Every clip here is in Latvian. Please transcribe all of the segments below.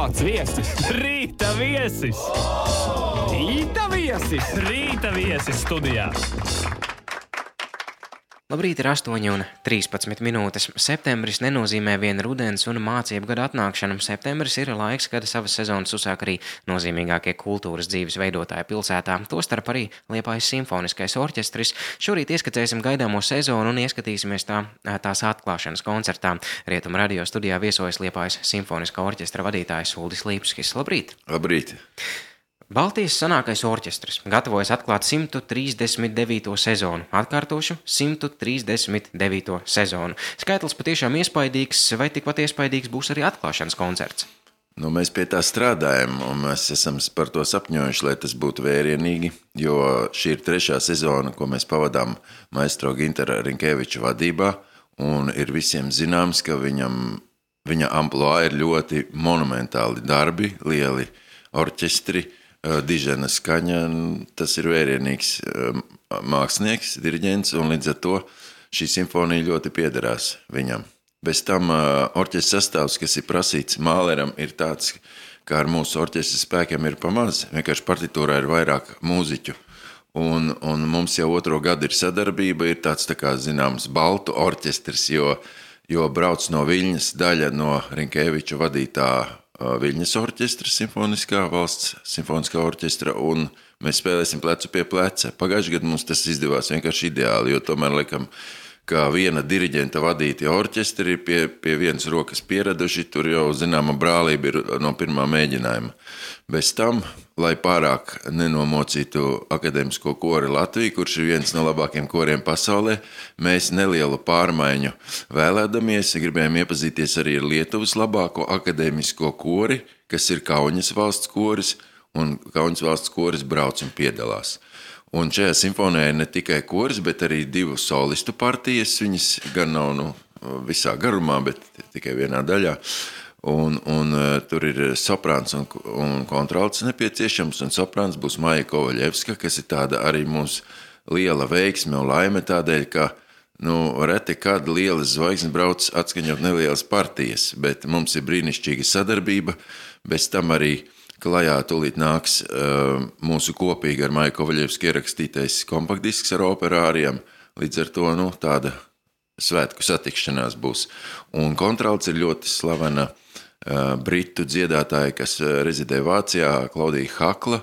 Kāds viesis? Rīta viesis! Rīta viesis! Rīta viesis studijā! Labrīt, ir 8:13. Septembris nenozīmē vien rudens un mācību gada atnākšanu. Septembris ir laiks, kad savas sezonas uzsāk arī nozīmīgākie kultūras dzīves veidotāji pilsētā, tostarp arī Liepājas simfoniskais orķestris. Šorīt ieskatēsim gaidāmo sezonu un ieskatīsimies tās atklāšanas koncertā. Rietumu radio studijā viesojas Liepājas simfoniskā orķestra vadītājs Uldis Līpskis. Labrīt! Labrīt! Baltijas senākais orķestris gatavojas atklāt 139. sezonu. Atkārtošu 139. sezonu. Skaitlis patiešām iespaidīgs, vai tikpat iespaidīgs būs arī atklāšanas koncerts? Mēs pie tā strādājam, un mēs esam par to sapņojuši, lai tas būtu vērienīgi, jo šī ir 3. sezona, ko mēs pavadām maestro Gintara Rinkeviča vadībā, un ir visiem zināms, ka viņa amploā ir ļoti monumentāli darbi, lieli orķestri, dižena skaņa, tas ir vērienīgs mākslinieks, diriģents, un līdz ar to šī simfonija ļoti piederās viņam. Bez tam orķestra sastāvs, kas ir prasīts Māleram, ir tāds, kā ar mūsu orķestra spēkiem ir pamaz. Vienkārši partitūrā ir vairāk mūziķu. Un mums jau 2. gadu ir sadarbība, ir tāds tā kā zināms baltu orķestris, jo brauc no Viļņas daļa no Rinkeviča vadītā Viļņas orķestra, simfoniskā valsts simfoniskā orķestra, un mēs spēlēsim plecu pie pleca. Pagājušajā gadā mums tas izdevās vienkārši ideāli, jo tomēr laikam, kā viena diriģenta vadīti orķestri pie vienas rokas pieraduši, tur jau zināma brālība ir no pirmā mēģinājuma. Bez tam, lai pārāk nenomocītu akadēmisko kori Latviju, kurš ir viens no labākiem koriem pasaulē, mēs nelielu pārmaiņu vēlēdamies, gribējām iepazīties arī ar Lietuvas labāko akadēmisko kori, kas ir Kauņas valsts koris, un Kauņas valsts koris brauc un piedalās. Un šajā simfonijā ir ne tikai koris, bet arī 2 solistu partijas, viņas gan nav visā garumā, bet tikai vienā daļā. Un tur ir soprāns un kontralts nepieciešams, un soprāns būs Maija Kovaļevska, kas ir tāda arī mums liela veiksme un laime tādēļ, ka reti kāda liela zvaigzne brauc atskaņot nelielas partijas, bet mums ir brīnišķīga sadarbība, bez tam arī klajā tūlīt nāks mūsu kopīgi ar Maiju Kovaļevsku ierakstītais kompaktdisks ar operāriem, līdz ar to tāda svētku satikšanās būs. Un kontralts ir ļoti slavena britu dziedātāja, kas rezidē Vācijā, Klaudija Hakla.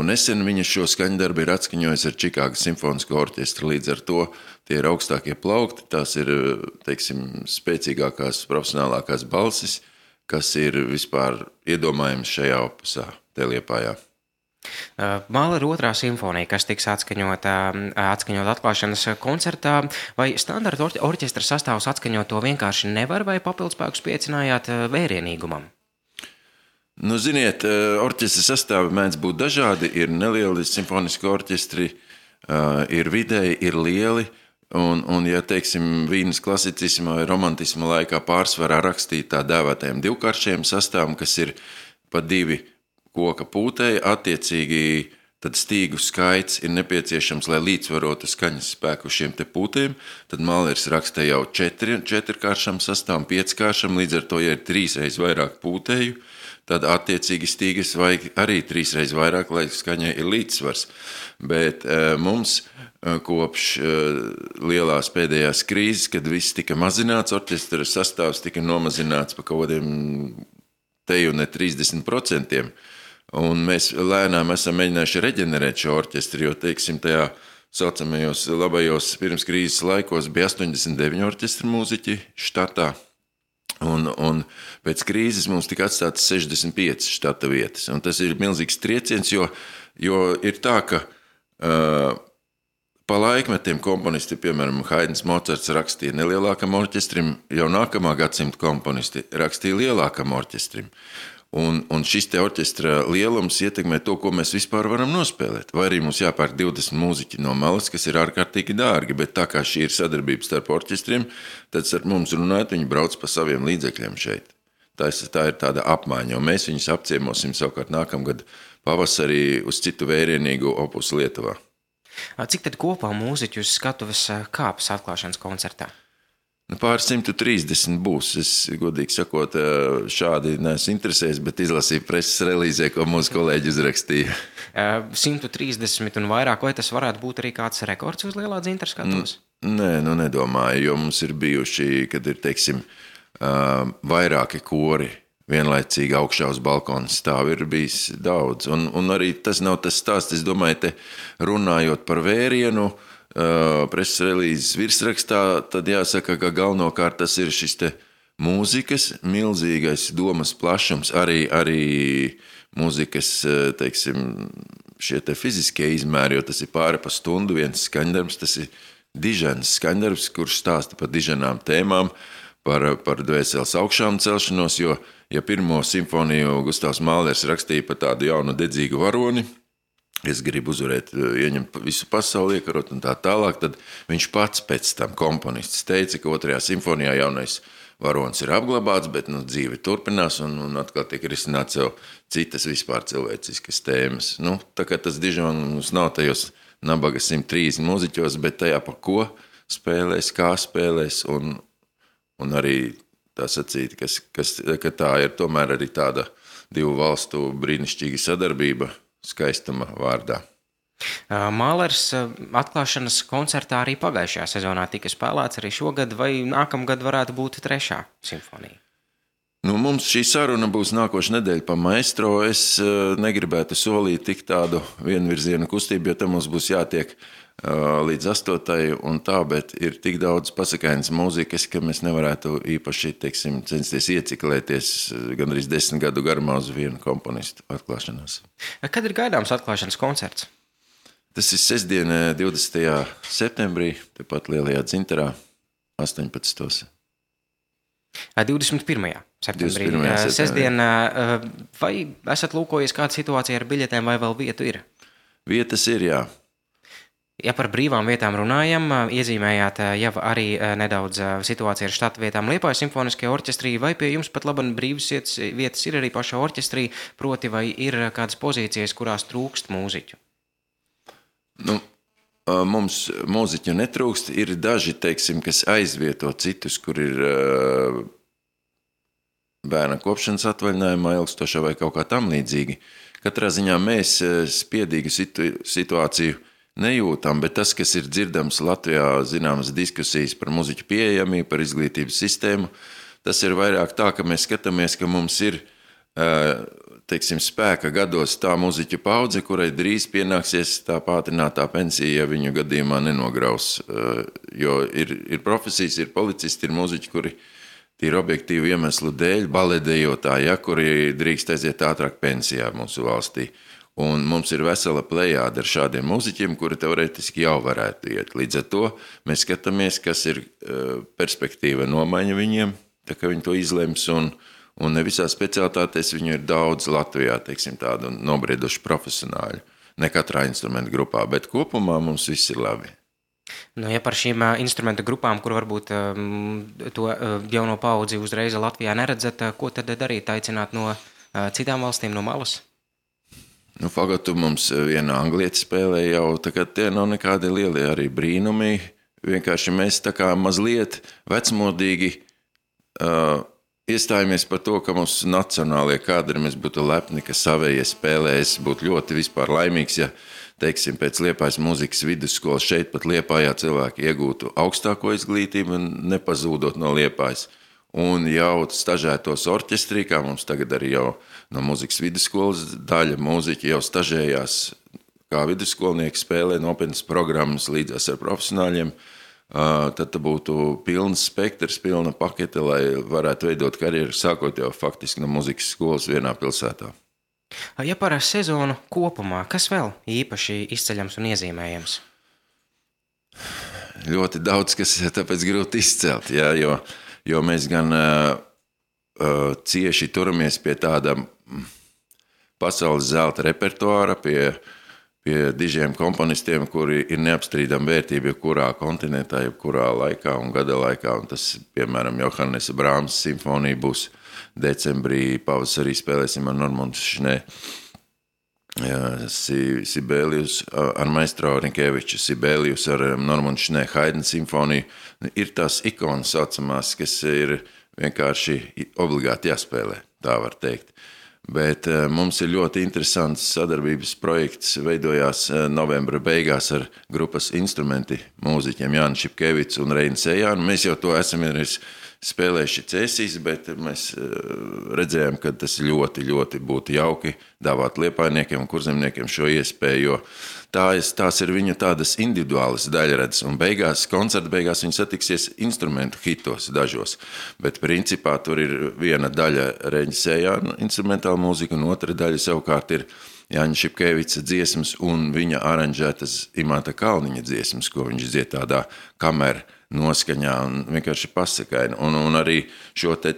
Nesen viņa šo skaņdarbu ir atskaņojusi ar Čikāgas simfonisko orķestru, līdz ar to tie ir augstākie plaukti, tās ir, teiksim, spēcīgākās, profesionālākās balsis, kas ir vispār iedomājams šajā opusā, te Liepājā. Mālera 2. simfonija, kas tiks atskaņot atklāšanas koncertā, vai standarta orķestra sastāvs atskaņot to vienkārši nevar, vai papildspēkus piecinājāt vērienīgumam? Ziniet, orķestra sastāvi mēdz būt dažādi, ir nelieli simfoniski orķestri, ir vidēji, ir lieli, un ja, teiksim, Vīnes klasicisma vai romantisma laikā pārsvarā rakstīt tā dēvētajiem 2-karšiem sastāvam, kas ir pa 2 koka pūtēji, attiecīgi tad stīgu skaits ir nepieciešams, lai līdzvarotu skaņas spēku šiem te pūtēm, tad Mālers raksta jau 4-karšam sastāvam, 5-karšam, līdz ar to, ja ir 3 reiz vairāk pūtēju, tad attiecīgi stīgas vajag arī 3 reiz vairāk, lai skaņai ir līdzsvars. Bet mums kopš lielās pēdējās krīzes, kad viss tika mazināts, orķestra sastāvs tika nomazināts pa kaut kādiem teju ne 30%, un mēs lēnām esam mēģinājuši reģenerēt šo orķestri, jo, teiksim, tajā saucamajos labajos pirms krīzes laikos bija 89 orķestra mūziķi štatā, un pēc krīzes mums tika atstātas 65 štata vietas, un tas ir milzīgs trieciens, jo ir tā, ka pa laikmetiem komponisti, piemēram, Haidns Mocarts rakstīja nelielākam orķestrim, jau nākamā gadsimta komponisti rakstīja lielākam orķestrim. Un šis te orķestra lielums ietekmē to, ko mēs vispār varam nospēlēt. Vai arī mums jāpērk 20 mūziķi no malas, kas ir ārkārtīgi dārgi, bet tā kā šī ir sadarbība starp orķestriem, tad ar mums runājot, viņi brauc pa saviem līdzekļiem šeit. Tā ir tāda apmaiņa, un mēs viņus apciemosim savukārt nākamgad pavasarī uz citu vērienīgu opusu Lietuvā. Cik tad kopā mūziķi uz skatuves kāpas atklāšanas koncertā? Pār 130 būs. Es, godīgi sakot, šādi neesmu interesējies, bet izlasīju preses relīzē, ko mūsu kolēģi uzrakstīja. 130 un vairāk, vai tas varētu būt arī kāds rekords uz Lielā Dzintra skatos? Nē, nedomāju, jo mums ir bijuši, kad ir, teiksim, vairāki kori vienlaicīgi augšā uz balkona stāv, ir bijis daudz. Un arī tas nav tas stāsts, es domāju, te runājot par Vērienu, preses relīzes virsrakstā, tad jāsaka, ka galvenokārt tas ir šis te mūzikas milzīgais domas plašums, arī mūzikas, teiksim, šie te fiziskie izmēri, jo tas ir pāri pa stundu viens skaņdarbs, tas ir diženas skaņdarbs, kurš stāsta par diženām tēmām, par dvēseles augšām celšanos, jo, ja pirmo simfoniju Gustavs Mālers rakstīja par tādu jaunu dedzīgu varoni, es gribu uzvarēt, ieņemt visu pasauli, iekarot un tā tālāk, tad viņš pats pēc tam komponists teica, ka 2. simfonijā jaunais varonis ir apglabāts, bet dzīve turpinās un atkal tiek risināt sev citas vispār cilvēciskas tēmas. Tā kā tas dižons nav tajos nabaga 130 mūziķos, bet tajā pa ko spēlēs, kā spēlēs un arī tā sacīt, ka tā ir tomēr arī tāda divu valstu brīnišķīga sadarbība, skaistuma vārdā. Mālers atklāšanas koncertā arī pagājušajā sezonā tika spēlēts arī šogad, vai nākamgad varētu būt 3. simfonija? Mums šī saruna būs nākoša nedēļa pa maestro. Es negribētu solīt tik tādu vienvirzienu kustību, jo tam mums būs jātiek līdz 8. un tā, bet ir tik daudz pasakainas mūzikas, ka mēs nevarētu īpaši, teiksim, censties ieciklēties gandrīz 10 gadu garumā uz vienu komponistu atklāšanās. Kad ir gaidāms atklāšanas koncerts? Tas ir sestdiena 20. septembrī, tepat Lielajā Dzintarā, 18. 21. septembrī. Sestdiena, vai esat lūkojies kāda situācija ar biļetēm, vai vēl vietu ir? Vietas ir, jā. Ja par brīvām vietām runājam, iezīmējāt jau arī nedaudz situāciju ar štata vietām Liepājas simfoniskajā orķestrī, vai pie jums pat labam brīvas vietas ir arī pašā orķestrī, proti vai ir kādas pozīcijas, kurās trūkst mūziķu? Mums mūziķu netrūkst, ir daži, teiksim, kas aizvieto citus, kur ir bērna kopšanas atvaļinājumā ilgstošā vai kaut kā tam līdzīgi. Katrā ziņā mēs spiedīgu situāciju nejūtam, bet tas, kas ir dzirdams Latvijā, zināmas diskusijas par muziķu pieejamību, par izglītības sistēmu, tas ir vairāk tā, ka mēs skatāmies, ka mums ir, teiksim, spēka gados tā muziķu paudze, kurai drīz pienāksies tā pātrinātā pensija, ja viņu gadījumā nenograus. Jo ir profesijas, ir policisti, ir muziķi, kuri tīri objektīvu iemeslu dēļ, baletdejotāji, kuri drīkst aiziet ātrāk pensijā mūsu valstī. Un mums ir vesela plejāde ar šādiem muziķiem, kuri teorētiski jau varētu iet. Līdz ar to mēs skatāmies, kas ir perspektīva nomaiņa viņiem, tā kā viņi to izlems, un ne visā specialitātēs viņu ir daudz Latvijā, teiksim, tādu nobrieduši profesionāļu, ne katrā instrumentu grupā, bet kopumā mums viss ir labi. Ja par šīm instrumentu grupām, kur varbūt to jauno paudzi uzreiz Latvijā neredzat, ko tad darīt, aicināt no citām valstīm, no malas? Fagotu mums viena anglieta spēlē jau, tā kā tie nav nekādi lielie arī brīnumi. Vienkārši mēs tā kā mazliet vecmodīgi iestājamies par to, ka mums nacionālie kadri, mēs būtu lepni, ka savējie spēlē. Es būtu ļoti vispār laimīgs, ja, teiksim, pēc Liepājas mūzikas vidusskolas šeit pat Liepājā cilvēki iegūtu augstāko izglītību un nepazūdot no Liepājas. Un jau stažētos orķestrī, kā mums tagad arī jau no mūzikas vidusskolas daļa mūziķi jau stažējās kā vidusskolnieki, spēlē nopietnas programmas līdzās ar profesionāļiem, tad būtu pilns spektrs, pilna pakete, lai varētu veidot karjeru, sākot jau faktiski no mūzikas skolas vienā pilsētā. Ja par sezonu kopumā, kas vēl īpaši izceļams un iezīmējams? Ļoti daudz, kas tāpēc grūti izcelt, jā, jo mēs gan cieši turamies pie tāda pasaules zelta repertuāra, pie dižiem komponistiem, kuri ir neapstrīdama vērtība jebkurā kontinentā, jebkurā laikā un gada laikā. Un tas, piemēram, Johannesa Brāmsa simfonija būs decembrī, pavasarī spēlēsim ar Normundu Šnē. Sibelius ar maestro Rinkeviču, Sibelius ar Normundu Šnē Haidna simfoniju. Ir tās ikonas saucamās, kas ir vienkārši obligāti jāspēlē, tā var teikt. Bet mums ir ļoti interesants sadarbības projekts, veidojās novembra beigās ar grupas instrumenti mūziķiem Jāni Šipkevics un Reini Sejānu. Mēs jau to esam spēlējuši Cēsīs, bet mēs redzējām, ka tas ļoti, ļoti būtu jauki dāvāt liepājniekiem un kurzemniekiem šo iespēju, jo tās ir viņu tādas individuālas daļradas, un koncerta beigās viņi satiksies instrumentu hitos dažos, bet principā tur ir viena daļa Reņa Sejāna instrumentāla mūzika, un otra daļa savukārt ir Jāņa Šipkevica dziesmas un viņa aranžētas Imanta Kalniņa dziesmas, ko viņš dzied tādā kameru noskaņā un vienkārši pasakaini. Un arī šo te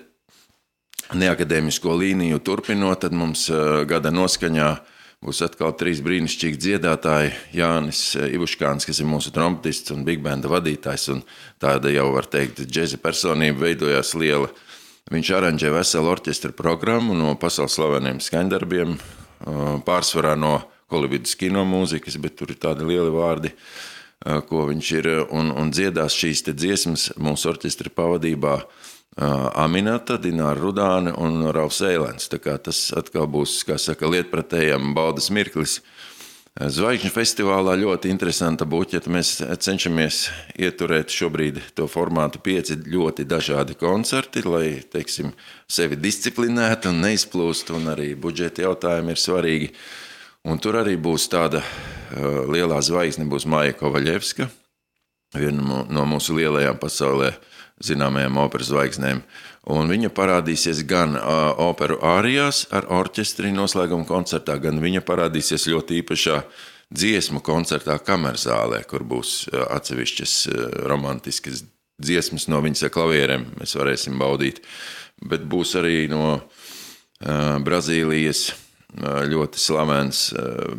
neakadēmisko līniju turpinot, tad mums gada noskaņā būs atkal 3 brīnišķīgi dziedātāji. Jānis Ivuškāns, kas ir mūsu trompetists un big banda vadītājs, un tāda jau var teikt džeza personība veidojās liela. Viņš aranžē veselu orķestra programmu no pasaules slaveniem skaņdarbiem, pārsvarā no Holivudas kino mūzikas, bet tur ir tādi lieli vārdi, ko viņš ir, un dziedās šīs te dziesmas mūsu orķestra pavadībā Aminata, Dināra Rudāne un Raufs Eilens. Tā kā tas atkal būs, kā saka, lietpratējam baudas mirklis. Zvaigžņu festivālā ļoti interesanta buķeta. Mēs cenšamies ieturēt šobrīd to formātu 5 ļoti dažādi koncerti, lai, teiksim, sevi disciplinētu un neizplūst, un arī budžeta jautājumi ir svarīgi. Un tur arī būs tāda lielā zvaigzne, būs Maija Kovaļevska, viena no mūsu lielajām pasaulē zināmajām operas zvaigznēm. Un viņa parādīsies gan operu ārijās ar orķestri noslēguma koncertā, gan viņa parādīsies ļoti īpašā dziesmu koncertā Kamerzālē, kur būs atsevišķas romantiskas dziesmas no viņas klavierēm, mēs varēsim baudīt. Bet būs arī no Brazīlijas ļoti slavens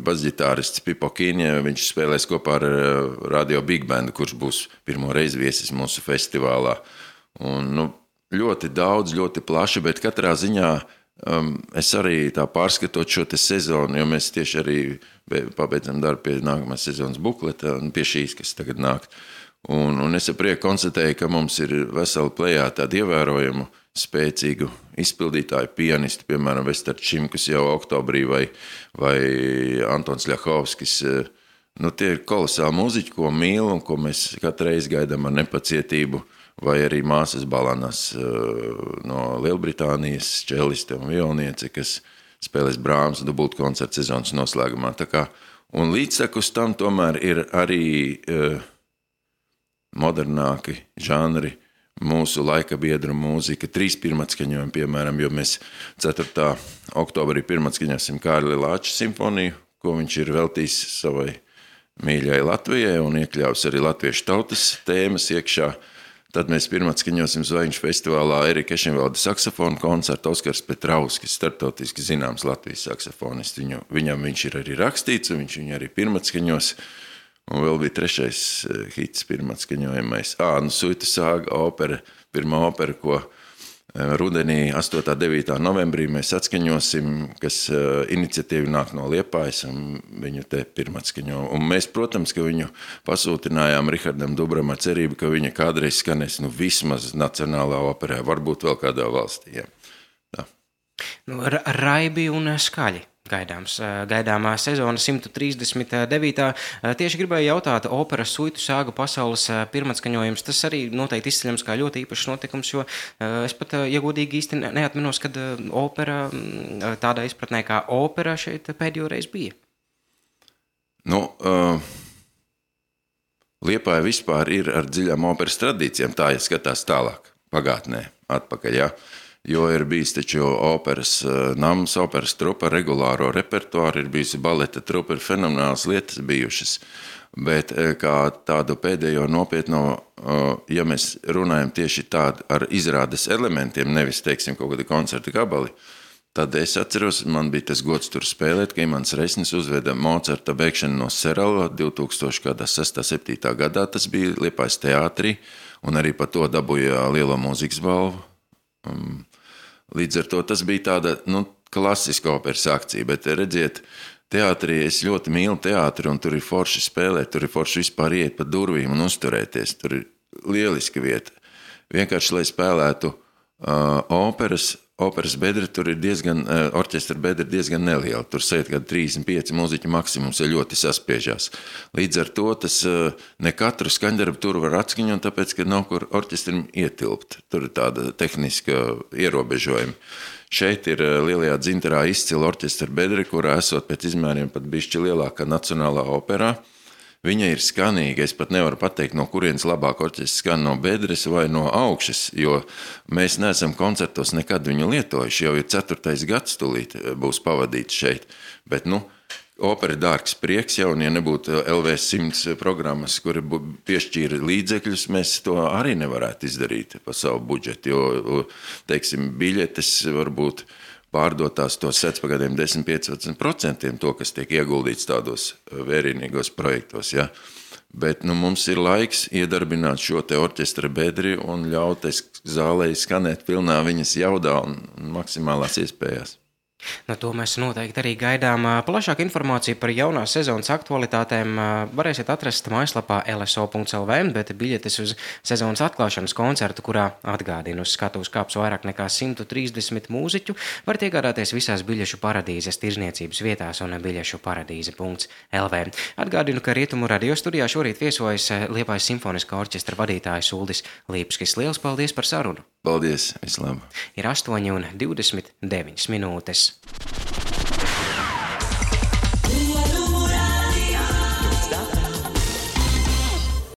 basģitārists Pipo Kīņē. Viņš spēlēs kopā ar Radio Big Bandu, kurš būs pirmo reizi viesis mūsu festivālā. Un, ļoti daudz, ļoti plaši, bet katrā ziņā es arī tā pārskatot šo te sezonu, jo mēs tieši arī pabeidzam darbu pie nākamās sezonas bukleta un pie šīs, kas tagad nāk. Un es ar prieku konstatēju, ka mums ir vesela plejā tādu ievērojumu spēcīgu izpildītāju pianisti, piemēram, Vestar Čimkus jau oktobrī vai Antons Ļahovskis. Tie ir kolosāli mūziķi, ko mīl un ko mēs katru reizi gaidām ar nepacietību, vai arī māsas Balanas no Lielbritānijas, čeliste un violniece, kas spēlēs Brāhms dubultu koncertu sezonas noslēgumā. Un līdztekus tam tomēr ir arī modernāki žanri, mūsu laika biedru mūzika, 3 pirmatskaņojumi, piemēram, jo mēs 4. oktobrī pirmatskaņosim Kārli Lāča simfoniju, ko viņš ir veltījis savai mīļai Latvijai un iekļāvis arī latviešu tautas tēmas iekšā. Tad mēs pirmatskaņosim Zvaigžņu festivālā Erika Ešenvalda saksofonu koncertu. Oskars Petrauskis, starptautiski zināms Latvijas saksofonists. Viņam viņš ir arī rakstīts, un viņš viņu arī pirmatskaņos. Un vēl bija 3. hits pirmatskaņojamais. Suitu sāga opera, pirmā opera, ko rudenī 8. 9. novembrī mēs atskaņosim, kas iniciatīvi nāk no Liepājas, un viņu te pirmatskaņo. Un mēs, protams, ka viņu pasūtinājām Rihardam Dubram ar cerību, ka viņa kādreiz skanēs vismaz nacionālā operā, varbūt vēl kādā valstī. Ja. Raibi un skaļi. Gaidāmā sezona 139. Tieši gribēju jautāt, operas Suitu sāga pasaules pirmatskaņojums, tas arī noteikti izceļams kā ļoti īpašs notikums, jo es pat, ja godīgi īsti neatminos, kad opera, tādā izpratnē kā opera šeit pēdējo reizi bija. Liepāja vispār ir ar dziļām operas tradīcijām, tā ja skatās tālāk, pagātnē, atpakaļ, jā. Jo ir bijis taču operas nams, operas trupa, regulāro repertuāru, ir bijusi baleta trupa, ir fenomenāls lietas bijušas. Bet kā tādu pēdējo nopietno, ja mēs runājam tieši tādu ar izrādes elementiem, nevis, teiksim, kaut kādu koncertu gabali, tad es atceros, man bija tas gods tur spēlēt, ka Imants Resnis uzveda Mocarta beigšanu no Serala 2006. 7. gadā, tas bija Liepājas teātrī, un arī par to dabūja lielo mūzikas balvu. Līdz ar to tas bija tāda klasiska operas akcija, bet redziet, teātrī es ļoti mīlu teātri, un tur ir forši spēlēt, tur ir forši vispār iet pa durvīm un uzturēties. Tur ir lieliska vieta. Vienkārši, lai spēlētu operas bedre, tur ir orķestra bedre diezgan neliela. Tur sēd kādi 35 mūziķu maksimums, ja ļoti saspiežās. Līdz ar to tas ne katru skaņdarbu tur var atskaņot, tāpēc, ka nav kur orķestrim ietilpt. Tur ir tāda tehniska ierobežojuma. Šeit ir Lielajā Dzintarā izcila orķestra bedre, kurā esot pēc izmēriem pat bišķi lielākā Nacionālā operā. Viņa ir skanīga, es pat nevaru pateikt, no kurienes labāk orķestris skan, no bedres vai no augšas, jo mēs neesam koncertos nekad viņu lietojuši, jau ir 4. gads tūlīt būs pavadīts šeit, bet, opera dārgs prieks jau, un ja nebūtu LV100 programmas, kuri piešķīra līdzekļus, mēs to arī nevarētu izdarīt pa savu budžetu, jo, teiksim, biļetes varbūt pārdotās tos sec pa gadiem 10-15% to, kas tiek ieguldīts tādos vērienīgos projektos, ja. Bet, mums ir laiks iedarbināt šo te orķestra bedri un ļaut zālei skanēt pilnā viņas jaudā un maksimālās iespējās. To mēs noteikti arī gaidām. Plašāku informāciju par jaunās sezonas aktualitātēm varēsiet atrast mājaslapā lso.lv, bet biļetes uz sezonas atklāšanas koncertu, kurā atgādina uz skatuves kāps vairāk nekā 130 mūziķu, varat iegādāties visās biļešu paradīzes tirzniecības vietās un biļešuparadīze.lv. Atgādinu, ka Rietumu radio studijā šorīt viesojas Liepājas simfoniskā orķestra vadītājs Uldis Līpskis. Liels paldies par sarunu! Paldies, vislabāk! Ir 8:29 minūtes.